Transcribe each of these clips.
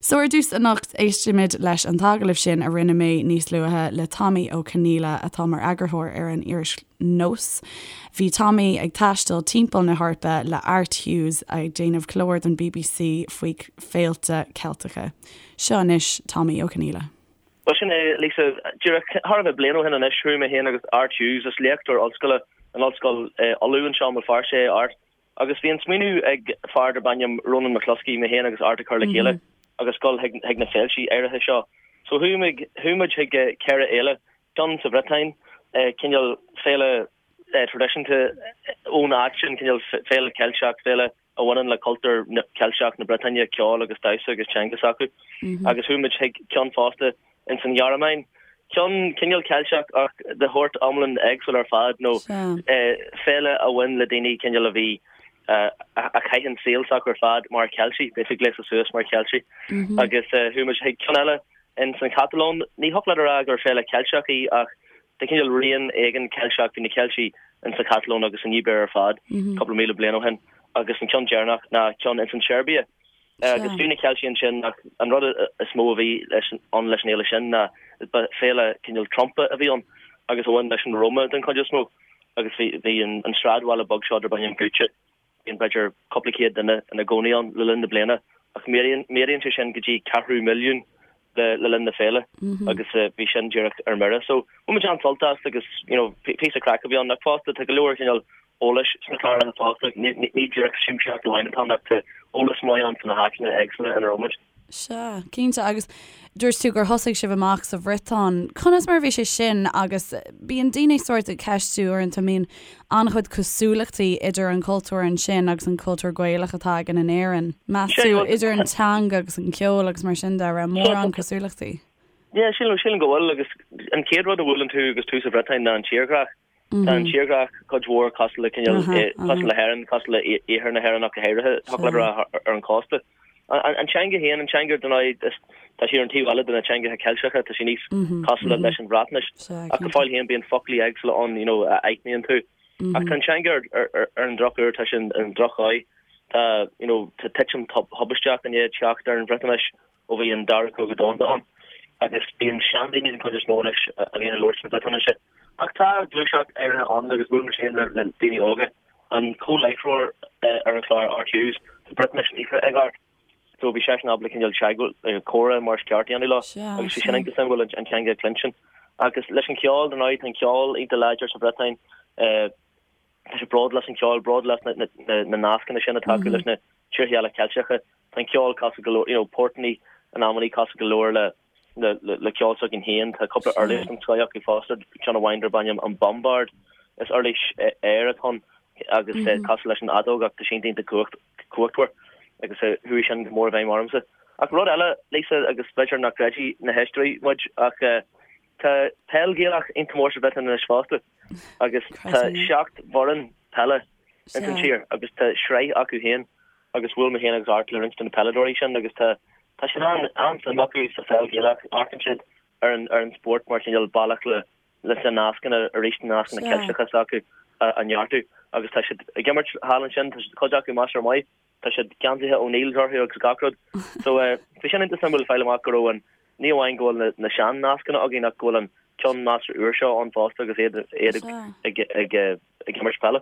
So ar dtús anocht, éistfimid leis an t-agallamh sin a rinne mé níos luaithe le Tommy Ó Conghaile atá mar eagarthóir ar an iris Nós. Bhí Tommy ag taisteal timpeall na hEorpa le Art Hughes ag déanamh clár don bbc faoi féilte Ceilteacha. Seo anois Tommy Ó Conghaile. Bhuel sin é, Lisa. Díreach thar a bheith bliain ó shin anois, chuaigh mé féin agus Art Hughes, is léachtóir ollscoile in Ollscoil Uladh anseo i mBéal Feirste é Art, Agus bhí an smaoineamh ag fear darb ainm Ronan McCluskey, mé féin agus Art a chur le chéile agus dul chuig na féiltí áirithe seo. So chuaigh muid, chuaigh muid chuig 4 fhéile, ceann sa Bhriotáin, cineál féile traidisiúnta ón áit sin, cineál féile Ceilteach, féile a bhaineann le cultúr Ceilteach na Briotáine, ceol agus damhsa agus teanga s'acu. Agus chuaigh muid chuig ceann fosta ins an Ghearmáin. Ceann cineál Ceilteach ach de shórt iomlán éagsúil ar fad nó féile a bhain le daoine cineál a bhí a chaith an saol s'acu ar fad mar Cheiltigh, basically gléasta suas mar Cheiltigh. Agus chuaigh muid chuig ceann eile ins an Chatalóin. Ní thiocfadh leat a rá gur féile Ceilteach í ach de chineál rian éigin Ceilteach, bhí na Ceiltigh ins an Chatalóin agus san Ibéir ar fad cúpla míle bliain ó shin. Agus an ceann deireanach ná ceann ins an tSeirbia. Agus bhí na Ceiltigh ansin ach an rud is mó a bhí leis ann leis an fhéile sin ná ba féile cineál trumpa a bhí ann agus a bhain leis an Roma den chuid is mó agus bhí bhí an an sráidbhaile beag seo darb ainm Guča bíonn b'fhéidir cúpla céad duine ina gcónaí ann le linn na bliana ach méadaíonn méadaíonn sé sin go dtí ceathrú milliún le le linn na féile agus bhí sin díreach ar mire. So bhain muid an-sult as agus you know píosa craic a bhí ann ach fosta tá go leor cineál eolais sna cláracha fosta, ní díreach siamsaíocht amháin atá ann ach tá eolas maith ann faoi na háiteanna éagsúla ina raibh muid. Sea, cinnte. Agus dúirt tú gur thosaigh sibh amach sa Bhriotáin. Conas mar a bhí sé sin agus bíonn daoine sórt ag ceistiú uaireanta, an mbíonn an-chuid cosúlachtaí idir an cultúr ansin agus an cultúr Gaelach atá againn in Éirinn? Meas tú, idir an teanga agus an ceol agus mar sin de, raibh mórán cosúlachtaí? Yeah, sílim, sílim go bhfuil agus an chéad rud a bhuaileann tú agus tú sa Bhriotáin ná an tírdhreach. Tá an tírdhreach cuid mhór cosúil le cineál, cosúil le hÉirinn, cosúil le iarthar na hÉireann ach go háirithe, thiocfadh leat a rá ar an chósta. An teanga féin, an teanga dar ndóigh, tá sí ar an taobh eile de na teangacha Ceilteacha, tá sí níos cosúla leis an Bhreatnais. Ach go fóill féin bíonn foclaí éagsúla ann, you know, a aithníonn tú. Ach tá an teanga ar an drochuair, tá sí i ndrochdhóigh. Tá, you know, tá titim thubaisteach i ndiaidh teacht ar an Bhriotáinis. ó bhí an Dara Cogadh Domhanda ann, agus bíonn seandaoine den chuid is mó anois a bhíonn ag labhairt na Briotáinise. Ach tá gluaiseacht áirithe ann agus bhuail mé féin le daoine óga. An comhláithreoir ar an chlár, Art Hughes, tá Briotáinis líofa ag Art, so bhí seisean ábalta cineál teagmháil, comhrá mar is ceart a dhéanamh leo agus bhí sin iontach suimiúil an teanga a chluinstin. Agus leis an cheol, dar ndóigh, tá an ceol iontach láidir sa Bhriotáin. Tá siad bródúil as an cheol, bródúil as na nascanna sin atá acu leis na tíortha eile Ceilteacha. Tá an ceol cosúil go leor, you know, portannaí in amannaí cosúil go leor le le ceol s'againn féin. Tá cúpla uirlis den scoth acu fosta, ceann amháin darb ainm an bombard. Is uirlis aeir atá ann agus cosúil leis an fheadóg ach tá sí iontach cumhachtmhar agus chuaigh sin go mór i bhfeidhm ormsa. Ach rud eile, Lisa, agus b'fhéidir nach gcreidfidh na héisteoirí muid ach tá peil Ghaelach iontach mór sa Bhriotáin anois fosta. agus tá 7 bhfoireann peile ins an tír agus tá sraith acu féin agus bhuail mé féin agus Art le roinnt de na peileadóirí sin agus tá tá siad an an-suim acu sa pheil Ghaelach, amharcann siad ar an ar an spórt mar chineál bealach le leis na nascanna arís na nascanna Ceilteacha s'acu a a neartú agus tá siad ag imirt thall ansin, tá siad cuid acu measartha maith. Tá siad geansaithe O'Neills orthu agus gach rud. So bhí sin iontach suimiúil fáil amach go raibh an, ní amháin go bhfuil na sean-nascanna againn ach go bhfuil an ceann measartha úr seo ann fosta agus iad iad ag ag ag imirt peile.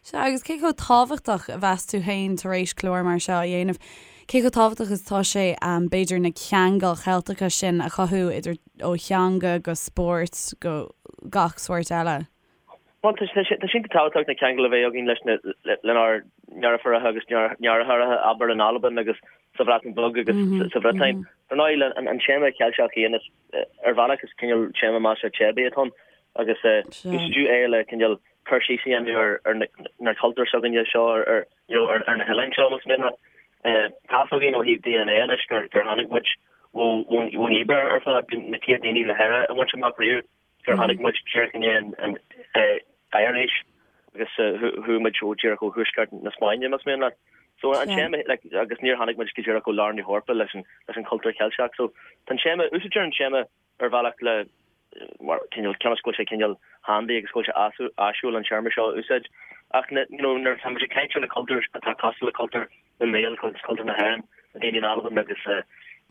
Sea, agus cé chomh tábhachtach a mheas tú féin tar éis clár mar seo a dhéanamh, cé chomh tábhachtach is atá sé b'fhéidir na ceangail Cheilteacha sin a chothú idir ó theanga go spórt go gach sórt eile? Bhuel, tá sé iontach tábhachtach na ceangail a bheith againn leis na, lenár ndeirfiúracha agus ndeartháireacha, abair, in Albain agus sa Bhreatain Bheag agus sa Bhriotáin. Dar ndóigh, an téama Ceilteach féin, is, ar bhealach, is cineál téama measartha teibí atá ann agus úsáideadh é le cineál cur síos a dhéanamh ar na cultúir s'againne seo, ar, you know, ar na hoileáin seo, más mian leat. Tá fhios againn ó thaobh DNA anois gur tháinig muid ón Ibéir ar fad, na chéad daoine le hÉire a bhaint amach riamh. gur tháinig muid díreach i ndiaidh an oighearaois agus chuaigh muid ó díreach ó thuaisceart na Spáinne, más mian leat. So an téama, like, agus níor tháinig muid go díreach ó lár na hEorpa leis an, leis an chultúr Ceilteach. So tá an téama, úsáidtear an téama ar bhealach le, mar cineál, cionn is go bhfuil sé cineál handy agus go bhfuil sé áisiúil an téarma seo a úsáid. Ach na, you know, nuair atá muid ag caint ar na cultúir atá cosúil le cultúr na nGael, cultúr na hÉireann, na daoine in Albain agus.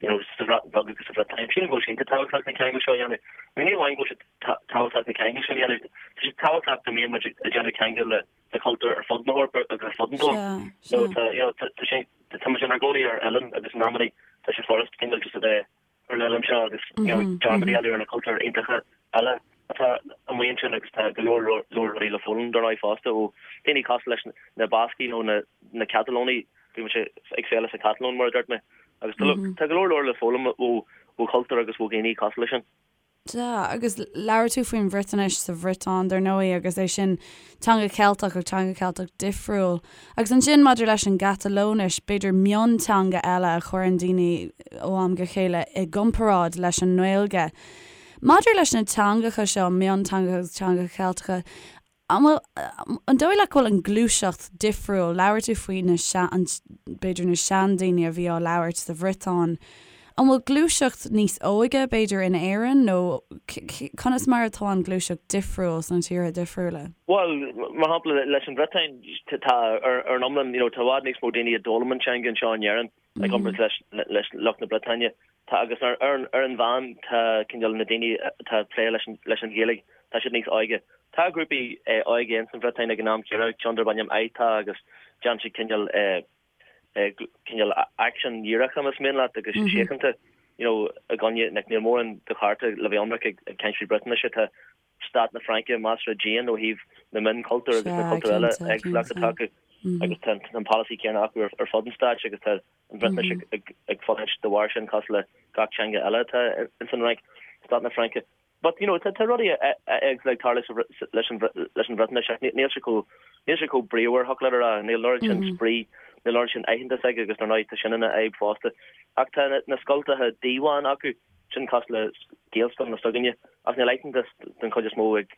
You know, sa Bhreatain Bheag agus sa Bhriotáin. Sílim go bhfuil sé iontach tábhachtach na ceangail seo a dhéanamh. I mean, ní amháin go bhfuil sé tábhachtach na ceangail seo a dhéanamh, tá sé tábhachtach go mbíonn muid ag déanamh ceangail le le cultúir ar fud na hEorpa agus ar fud an domhain. So tá, you know, tá sé, tá muid inár gcónaí ar oileán agus in amannaí tá sé furast cineál just a bheith ar an oileán seo agus, you know, dearmad a dhéanamh ar na cultúir iontacha eile atá amuigh ansin agus tá go leor leor rudaí le foghlaim dar ndóigh fosta ó daoine cosúil leis na Bascaigh nó na na Catalónaigh. Bhí muid ag féile sa Chatalóin mar a dúirt mé agus tá tá go leor leor le foghlaim ó ó chultúir agus ó dhaoine cosúil leis sin. Sea, agus labhair tú faoin Bhriotáinis sa Bhriotáin dar ndóigh agus é sin teanga Cheilteach ach teanga Cheilteach difriúil. Agus ansin maidir leis an gCatalóinis, b'fhéidir mionteanga eile a chuireann daoine ó am go chéile i gcomparáid leis an nGaeilge. Maidir leis na teangacha seo, mionteangacha agus teangacha Ceilteacha, An bhfuil, an dóigh leat go bhfuil an gluaiseacht difriúil? Labhair tú faoi na sean, b'fhéidir na seandaoine a bhí á labhairt sa Bhriotáin. An bhfuil gluaiseacht níos óige b'fhéidir in Éirinn nó conas mar atá an ghluaiseacht difriúil sna tíortha difriúla? Bhuel, mar shampla leis an Bhriotáin, tá ar an iomlán, you know, tá i bhfad níos mó daoine a d'fhoghlaim an teanga anseo in Éirinn i gcomparáid leis leis lucht na Briotáine. Tá agus ar ar an mheán tá cineál na daoine atá ag plé leis an leis an Ghaeilge, tá siad níos óige. Tá grúpaí óige ins an Bhriotáin ag an am céanna, ceann darb ainm Ai'ta agus déanann siad cineál cineál aicsean dhíreacha más mian leat agus síochánta you know i gcoinne like níl mórán de chearta le bheith ionraic ag ag caint faoi Briotáinise tá stát na Fraince measartha dian ó thaobh na mionchultúr agus na cultúir eile éagsúlacht atá acu agus tá an polasaí céanna acu ar fud an stáit agus tá an Bhriotáinis ag fulaingt de bharr sin cosúil le gach teanga eile atá ins an Fhrainc, stát na Fraince. But you know tá rudaí éagsúla ag tarlú leis an leis an Bhriotáinis ach níl sé chomh níl sé chomh bríomhar thiocfadh leat a rá, níl an oiread sin spraoi, níl an oiread sin aitheantas aige agus dar ndóigh tá sin ina fhadhb fosta. Ach tá na scoltacha Diwan acu, sin cosúil le Gaelscoileanna s'againne, ach níl aitheantas den chuid is mó ag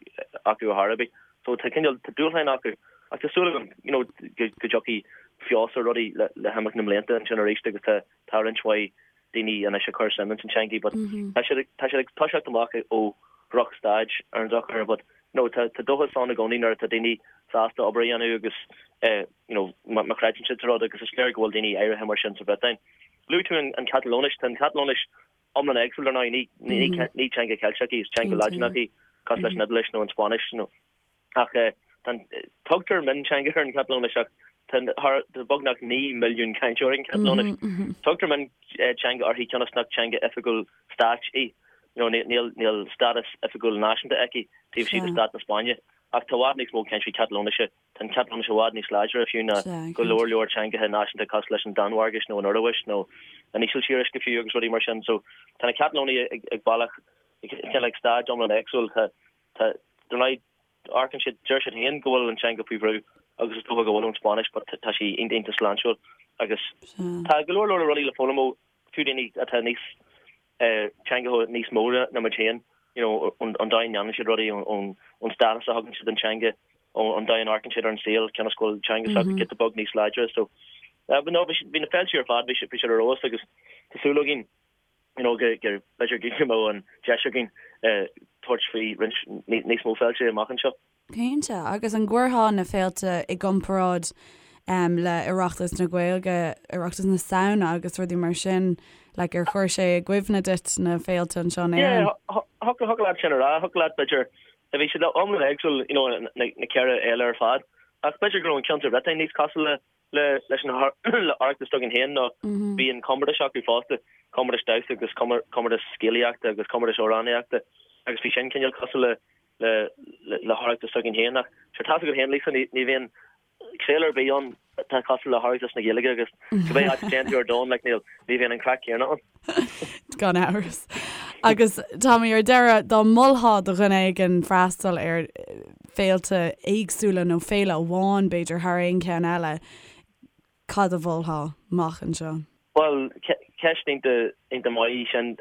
acu ar chor ar bith. So tá cineál, tá dúshláin acu ach tá súil agam you know go go dtiocfaidh feabhas ar rudaí le le himeacht na mblianta ansin arís agus tá tá roinnt mhaith daoine anois ag cur suim ins an teangaidh but tá siad ag tá siad ag toiseacht amach ó dhrochstaid ar an drochuair but you know tá tá dóchas ann i gcónaí nuair atá daoine sásta obair a dhéanamh agus eh you know má má chreideann siad sa rud agus is léir go bhfuil daoine áirithe mar sin sa Bhriotáin. Luaigh tú an Chatalóinis, tá an Chatalóinis iomlán éagsúil dar ndóigh, ní teanga Cheilteach í, is teanga Laidineach í, cosúil leis an Iodáilis nó an Spáinnis nó. Ach tugtar mionteanga ar an Chatalóinis ach tá beagnach 9 milliún cainteoir ag an Chatalóinis. Tugtar mionteanga uirthi cionn is nach teanga oifigiúil stáit í. Níl stádas oifigiúil náisiúnta aici taobh istigh de stát na Spáinne. Ach tá i bhfad níos mó cainteoirí Catalóinise Tá an Chatalóinis i bhfad níos láidre fiú ná go leor leor teangacha náisiúnta cosúil leis an Danmhairgis nó an Ioruais nó an Ísiltíris go fiú agus rudaí mar sin. So tá na Catalónaigh ag ag bealach cineál ag staid iomlán éagsúil. Tá tá dar ndóigh amharcann siad deir siad féin go bhfuil an teanga faoi bhrú agus is dócha go bhfuil ón Spáinnis but tá sí iontach iontach sláintiúil agus tá go leor leor rudaí le foghlaim ó fiú daoine atá níos teangacha níos mó ná muid féin, you know, an dóigh a ndéanann siad rudaí, ón stádas a thugann siad don teanga, an dóigh a n-amharcann siad ar an saol, cionn is go bhfuil teanga s'acu giota beag níos láidre. So, but no, bhí na féilte ar fad, bhí siad ar fheabhas agus tá súil againn, you know, go, go, b'fhéidir go mbeadh an deis againn tabhairt faoi roinnt níos mó féilte amach anseo. Cinnte. Agus an gcuirfeá na féilte i gcomparáid le Oireachtas na Gaeilge, Oireachtas na Samhna agus rudaí mar sin, like ar chuir sé i gcuimhne duit na féilte anseo in Éirinn? Yeah, thiocfadh leat sin a rá, thiocfadh leat b'fhéidir, bhí siad iomlán éagsúil, you know, na ceithre fhéile ar fad, ach b'fhéidir go raibh an ceann sa Bhriotáin níos cosúil le le leis an le Oireachtas s'againn féin nó bhí an comórtas acu fosta, comórtas damhsa agus comórtas scéalaíochta agus comórtas amhránaíochta agus bhí sin cineál cosúil le le le hOireachtas s'againn féin ach sure tá's agat féin Lisa ní ní bhíonn féile ar bith ann atá cosúil le hOireachtas na Gaeilge agus cibé áit a dtéann tú ar domhan like níl ní bhíonn an craic céanna ann. Gan amhras. Agus Tommy ar deireadh dá molfá do dhuine éigin freastal ar féilte éagsúla nó féile amháin b'fhéidir thar aon cheann eile, cad a mholfá amach anseo? Bhuel, ceist iontach maith í sin.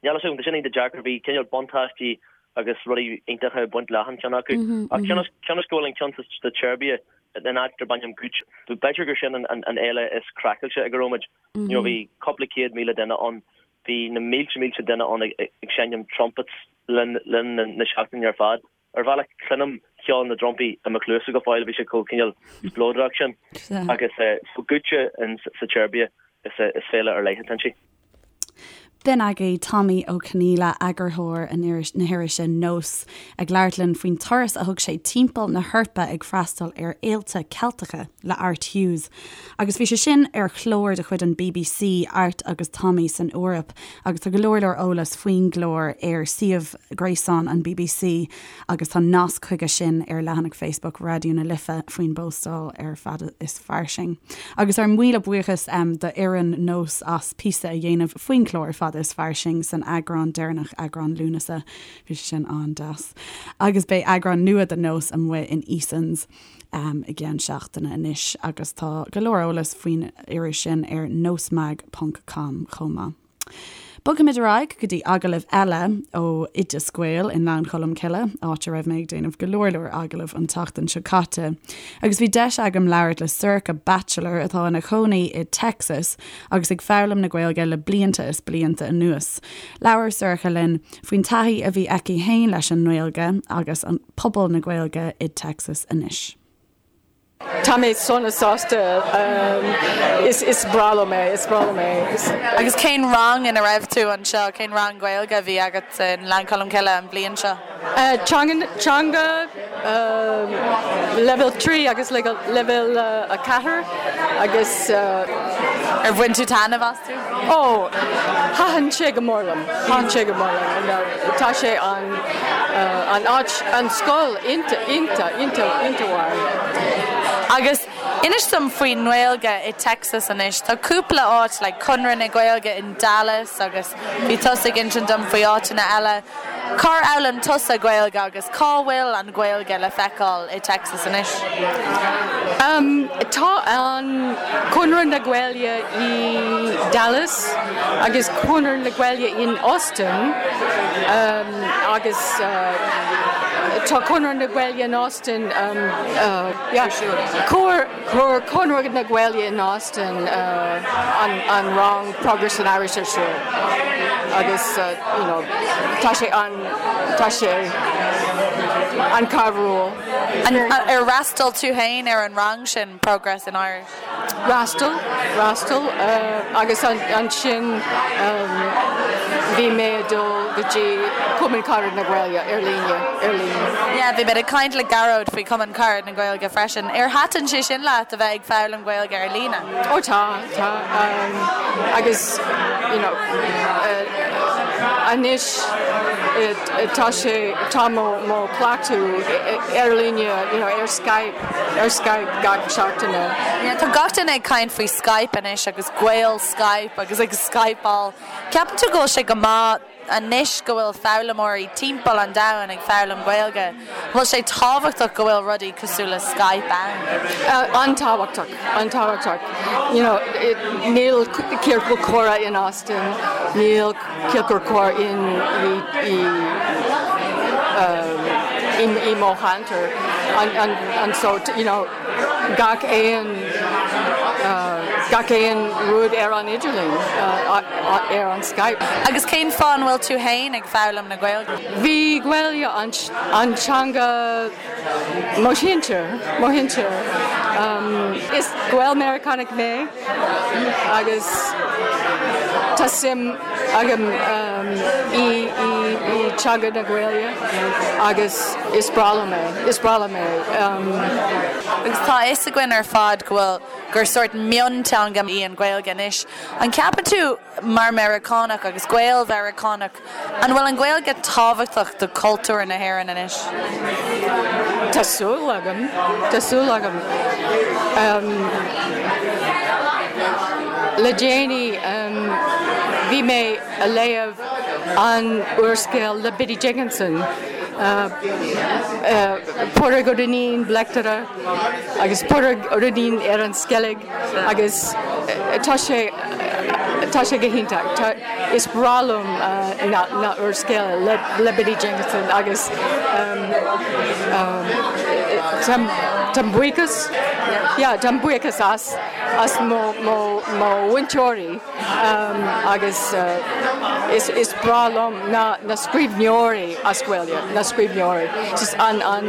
Níl a fhios agam, tá sin iontach deacair. Bhí cineál buntáistí agus rudaí iontacha ag baint le achan cheann acu. Ach cionn is go bhfuil an ceann sa tSeirbia, in áit darb ainm Guča, b'fhéidir gur sin an fhéile is craiceáilte ag a raibh muid. You know, bhí cúpla 100,000 duine ann, bhí na mílte mílte duine ann ag seinm trumpets le linn na seachtaine ar fad. Ar bhealach, cluinim ceol na dtrumpaí i mo chluasa go fóill, bhí sé chomh cineál spleodrach sin. Agus so Guča sa tSeirbia, is féile ar leith atá inti. B'in agaibh Tommy Ó Conghaile, eagarthóir an iris, na hirise Nós, ag labhairt linn faoin turas a thug sé timpeall na hEorpa ag freastal ar fhéilte Ceilteacha le Art Hughes. Agus bhí sé sin ar chlár de chuid an bbc, Art agus Tommy san Eoraip, agus tá go leor leor eolas faoin gclár ar suíomh gréasáin an bbc agus tá nasc chuige sin ar leathanach Facebook Raidió na Life faoin bpóstáil ar Fada is Fairsing. Agus ár míle buíochas d'fhoireann Nós as píosa a dhéanamh faoin chlár Fada is Fairsing san eagrán deireanach, eagrán Lúnasa. Bhí sé sin an-deas. Agus beidh eagrán nua de Nós amuigh in Easons i gceann seachtaine anois agus tá go leor eolas faoin iris sin ar nosmag ponc com chomh maith. Bogfaimid ar aghaidh go dtí agallamh eile ó Oideas Gael i nGleann Cholm Cille, áit a raibh mé ag déanamh go leor leor agallamh an tseachtain seo caite. Agus bhí deis agam labhairt le Sorcha Batchelor atá ina cónaí i Texas agus ag foghlaim na Gaeilge le blianta is blianta anuas. Labhair Sorcha linn faoin taithí a bhí aici féin leis an nGaeilge agus an pobal na Gaeilge i Texas anois. Tá mé sona sásta. Is breá liom é, is breá liom é. Agus cén rang ina raibh tú anseo, cén rang Gaeilge a bhí agat i nGleann Cholm Cille an bhliain seo? Teanga, leibhéal 3 agus leibhéal 4 agus. Ar bhain tú taitneamh astu? Ó, thaitin sé go mór liom, thaitin sé go mór liom. Tá sé an, an áit, an scoil iontach, iontach, iontach, iontach mhaith. Agus inis dom faoin nGaeilge i Texas anois. Tá cúpla áit, like Conradh na Gaeilge in Dallas agus bhí tusa ag insint dom faoi áiteanna eile. Cár fhoghlaim tusa Gaeilge agus cá bhfuil an Ghaeilge le feiceáil i Texas anois? Tá an Conradh na Gaeilge i Dallas agus Conradh na Gaeilge in Austin agus tá Conradh na Gaeilge in Austin yeah chuir Conradh na Gaeilge in Austin an rang Progress in Irish ar siúl agus you know tá sé an tá sé an-chabhrúil. Ar fhreastail tú féin ar an rang sin, Progress in Irish? Fhreastail, fhreastail agus ansin bhí mé ag dul go dtí Cumann Carad na Gaeilge ar líne, ar líne. Yeah, bhí mé ag caint le Gearóid faoi Cumann Carad na Gaeilge freisin. Ar thaitin sé sin leat a bheith ag foghlaim Gaeilge ar líne? Ó tá, tá agus you know anois tá sé, tá mo, mo cleachtadh ar líne, you know ar Skype, ar Skype gach seachtaine. Yeah, tá gach duine ag caint faoi Skype anois agus Gael Skype agus ag Skypeáil. Ceapann tú go bhfuil sé go maith anois go bhfuil foghlaimeoirí timpeall an domhain ag foghlaim Gaeilge? An bhfuil sé tábhachtach go bhfuil rudaí cosúil le Skype ann? An-tábhachtach, an-tábhachtach. You know, níl ciorcal comhrá in Austin, níl ciorcal comhrá in i i i mo cheantar. And so, you know, gach aon gach aon rud ar an idirlíon, ar an Skype. Agus cén fáth an bhfuil tú féin ag foghlaim na Gaeilge? Bhí Gaeilge an teanga mo shinsir, mo shinsir. Is Gael-Meiriceánach mé agus tá suim agam i i teanga na Gaeilge agus is breá liom é, is breá liom é. Agus tá a fhios againn ar fad go bhfuil, gur sórt mionteanga í an Ghaeilge anois. An gceapann tú, mar Mheiriceánach agus Gael-Mheiriceánach, an bhfuil an Ghaeilge tábhachtach do chultúr na hÉireann anois? Tá súil agam, tá súil agam. Le déanaí bhí mé a léamh an úrscéal le Biddy Jenkinson, Pádraig Ó Duinnín, Bleachtaire, agus Pádraig Ó Duinnín ar an Sceilg agus tá sé tá sé go hiontach. Tá is breá liom na na úrscéal le le Biddy Jenkinson agus táim buíochas yeah táim buíochas as as mo mo mo mhúinteoirí. Agus is breá liom na scríbhneoirí as Gaeilge, na scríbhneoirí. Just an, an,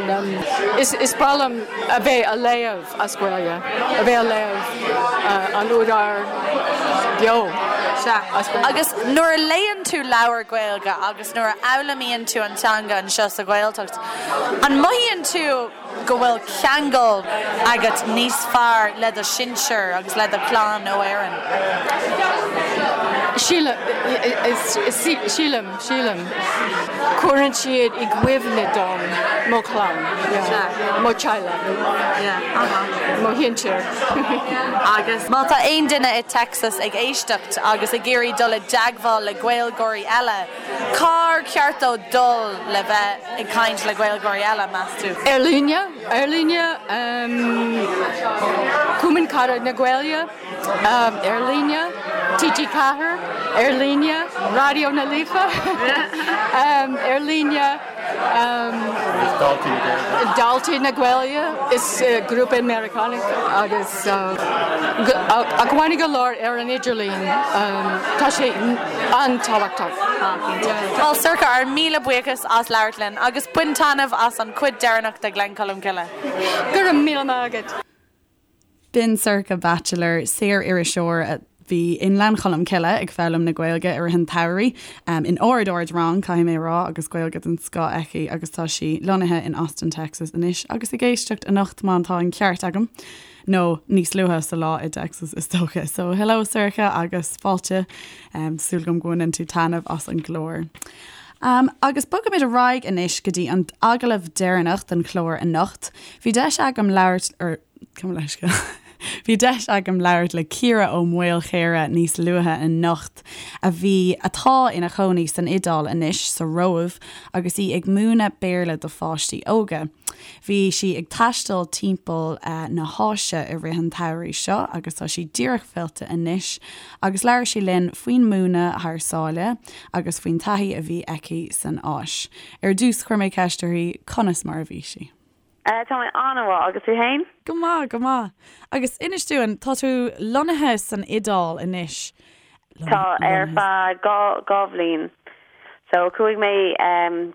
is breá liom a bheith a léamh as Gaeilge, a bheith a léamh an údar beo. Sea. Agus nuair a léann tú leabhar Gaeilge agus nuair a fhoghlaimíonn tú an teanga anseo sa Ghaeltacht, an mothaíonn tú go bhfuil ceangal agat níos fearr le do shinsir agus le do chlann ó Éirinn? Sílim, sílim, sílim. Cuireann siad i gcuimhne dom mo chlann, mo theaghlach, mo shinsir. Agus má tá aon duine i Texas ag éisteacht agus ag iarraidh dul i dteagmháil le Gaeilgeoirí eile, cár cheart dó dul le bheith ag caint le Gaeilgeoirí eile, meas tú? Ar líne, ar líne, Cumann Carad na Gaeilge, ar líne, TG4, ar líne, Raidió na Life, ar líne, Daltaí na Gaeilge, is grúpa Meiriceánach agus acmhainní go leor ar an idirlíon, tá sé an-tábhachtach. Bhuel, Sorcha, ár míle buíochas as labhairt linn agus bain taitneamh as an chuid deireanach de Ghleann Cholm Cille. Go raibh míle maith agat. B'in Sorcha Batchelor, saor-iriseoir a bhí i nGleann Cholm Cille ag foghlaim na Gaeilge i rith an tsamhraidh, in ard-ard-rang, caithfidh mé a rá, agus Gaeilge den scoth aici agus tá sí lonnaithe in Austin, Texas anois agus ag éisteacht anocht má tá an ceart agam, nó níos luaithe sa lá i dTexas is dócha. So hello Sorcha agus fáilte, súil agam go mbaineann tú taitneamh as an gclár. Um, agus bogaimid ar aghaidh anois go dtí an agallamh deireanach den chlár anocht. Bhí deis agam labhairt ar Gabh mo leithscéal. Bhí deis agam labhairt le Ciara Ó Maolchéire níos luaithe anocht, a bhí, atá ina chónaí san Iodáil anois, sa Róimh, agus í ag múineadh Béarla do pháistí óga. Bhí sí ag taisteal timpeall na hÁise i rith an tsamhraidh seo agus tá sí díreach fillte anois agus labhair sí linn faoin múineadh thar sáile agus faoin taithí a bhí aici san Áis. Ar dtús chuir mé ceist uirthi conas mar a bhí sí. Tá mé an-mhaith, agus tú fhéin? Go maith, go maith. Agus inis dúinn, tá tú lonnaithe san Iodáil anois. Tá, ar feadh 2 bhliain. So, chuaigh mé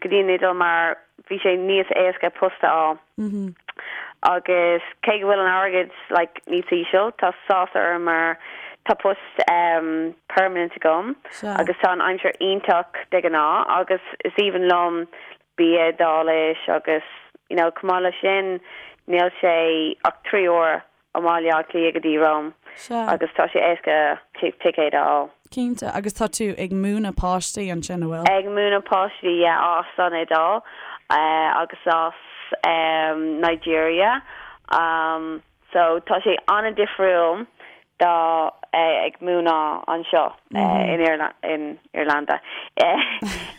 go dtí an Iodáil mar bhí sé níos éasca post a fháil. Agus cé go bhfuil an airgead like níos íseal, tá sásamh orm mar tá post permanent agam agus tá an aimsir iontach de ghnáth agus is aoibhinn liom bia Iodáilis agus you know chomh maith leis sin níl sé ach 3 uair ó mBaile Átha Cliath go dtí Rome agus tá sé éasca ticéad a fháil. Cinnte, agus tá tú ag múineadh páistí ansin, an bhfuil? Ag múineadh páistí, yeah, as an Iodáil agus as Nigeria. So tá sé an-difriúil do ag múineadh anseo in in Irlanda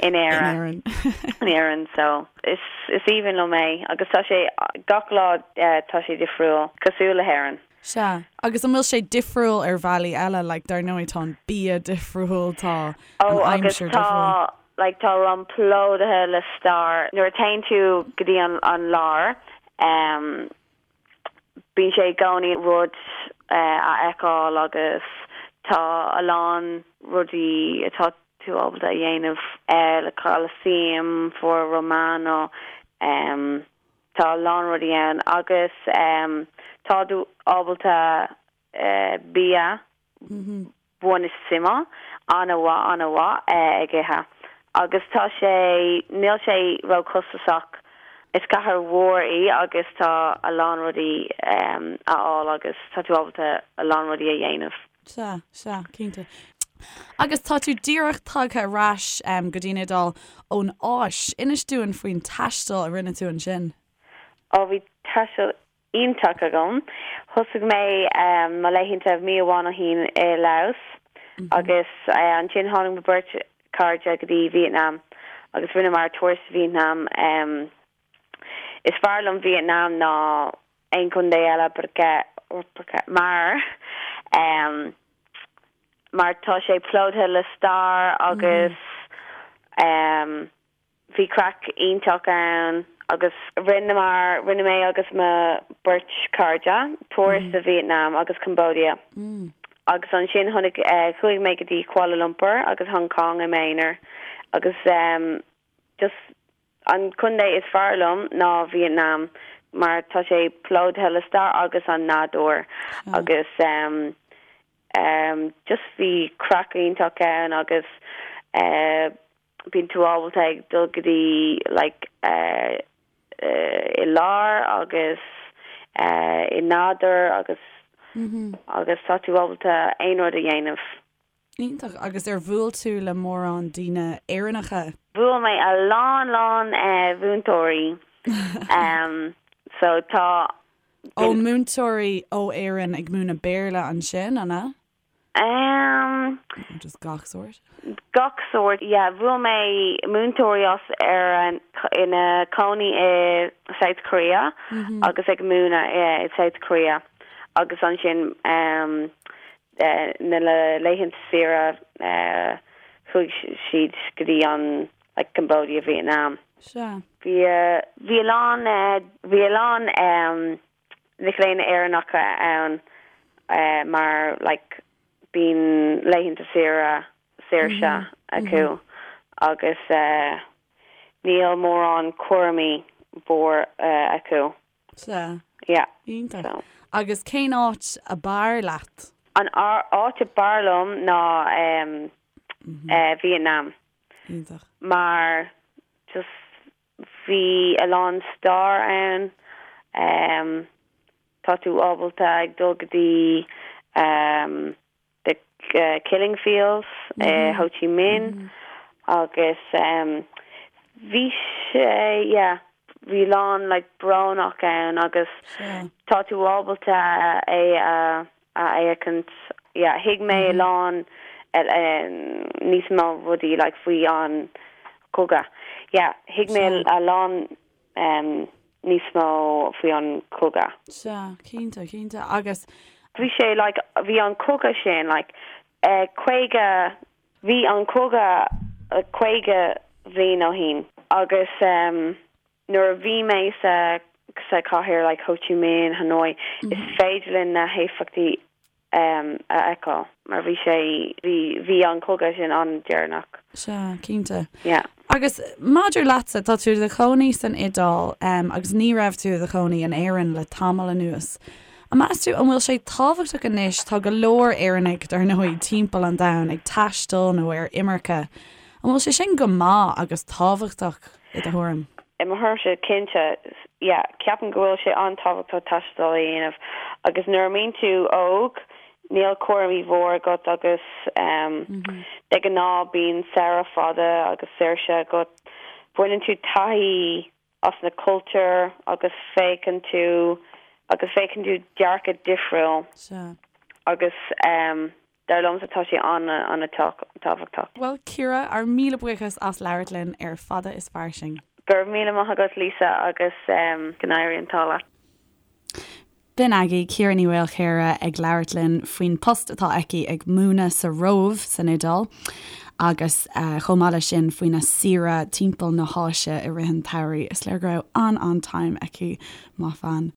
in Éirinn in Éirinn so is is aoibhinn liom é agus tá sé gach lá tá sé difriúil cosúil le hÉirinn. Sea, agus an bhfuil sé difriúil ar bhealaí eile like dar ndóigh tá an bia difriúil tá an Oh agus aimsir tá difriúil. like tá Rome plódaithe le stair nuair a téann tú go dtí an an lár um, Bíonn sé i gcónaí rud a fheiceáil agus tá a lán rudaí atá tú ábalta a dhéanamh le Colosseum, Foro Romano, tá a lán rudaí ann agus tá tú ábalta bia buonissimo, an-mhaith, an-mhaith ag ithe. Agus tá sé, níl sé ró-chostasach. Is cathair mhór í agus tá a lán rudaí a fháil agus tá tú ábalta a lán rudaí a dhéanamh. Sea, sea, cinnte. Agus tá tú díreach tagtha ar ais go dtí an Iodáil ón Áis. Inis dúinn faoin taisteal a rinne tú ansin. Ó, bhí taisteal iontach agam. Thosaigh mé mo laethanta mí amháin ó shin i Laos agus ansin tháinig mo beirt cairde go dtí Vietnam agus rinneamar turas Vietnam. Is fearr liom Vietnam ná aon chontae eile porque mar mar tá sé plódaithe le stair agus Bhí craic iontach ann agus rinneamar, rinne mé agus mo beirt cairde, turas do Vietnam agus Cambodia agus ansin tháinig, chuaigh mé go dtí Kuala Lumpur agus Hong Kong i m'aonar agus just an contae is fearr liom ná Vietnam mar tá sé plódaithe le stair agus an nádúr agus. Just bhí craic iontach ann agus bíonn tú ábalta ag dul go dtí like i lár agus i nádúr agus agus tá tú ábalta aon rud a dhéanamh. Iontach. Agus ar bhuail tú le mórán daoine Éireannacha? Bhuail mé a lán lán mhúinteoirí so tá. Ó múinteoirí ó Éirinn ag múineadh Béarla ansin, an ea? Nó just gach sórt? Gach sórt, yeah. Bhuail mé múinteoirí as Éirinn ina cónaí i South Korea agus ag múineadh i South Korea agus ansin na laethanta saoire chuaigh siad go dtí an like Cambodia, Vietnam. Sea. Bhí bhí a lán bhí a lán mic léinn Éireannacha ann mar like bíonn laethanta saoire saoirse acu agus níl mórán cúraimí mhór acu. Sea. Yeah. Iontach. So. Agus cén áit a b'fhearr leat? An áit a b'fhearr liom ná Vietnam. Iontach. Mar just bhí a lán stair ann. Tá tú ábalta ag dul go dtí The Killing Fields i Ho Chi Minh agus bhí sé, yeah, bhí lán like brónach ann agus tá tú ábalta é a a fhéachaint, yeah, thuig mé a lán níos mó rudaí like faoi an cogadh, yeah, thuig mé a lán níos mó faoi an cogadh. Sea, cinnte, cinnte. Agus. Bhí sé like, bhí an cogadh sin like 50, bhí an cogadh 50 bhliain ó shin agus nuair a bhí mé sa sa cathair like Ho Chi Minh, Hanoi, is féidir linn na héifeachtaí a fheiceáil mar bhí sé, bhí, bhí an cogadh sin an-deireanach. Sea, cinnte. Yeah. Agus maidir leatsa, tá tú i do chónaí san Iodáil agus ní raibh tú i do chónaí in Éirinn le tamall anuas. An meas tú an bhfuil sé tábhachtach anois, tá go leor Éireannaigh, dar ndóigh, timpeall an domhain ag taisteal nó ar imirce, an bhfuil sé sin go maith agus tábhachtach i do thuairim? I mo thuairimse, cinnte, yeah, ceapaim go bhfuil sé an-tábhachtach taisteal a dhéanamh agus nuair a mbíonn tú óg, níl cúraimí mhór agat agus de ghnáth bíonn samhradh fada agus saoirse agat. Baineann tú taithí as na cultúir agus féachann tú agus féachann tú dearcadh difriúil agus Dar liomsa tá sé an-an-tábhachtach. Bhuel Ciara, ár míle buíochas as labhairt linn ar Fada is Fairsing. Go raibh míle maith agat Lisa agus go n-éirí an t-ádh leat. B'in agaibh Ciara Ní Mhaolchéara ag labhairt linn faoin post atá aici ag múineadh sa Róimh san Iodáil agus chomh maith leis sin faoina saoire timpeall na hÁise i rith an tsamhraidh. Is léir go raibh an-an-time aici, maith bhean.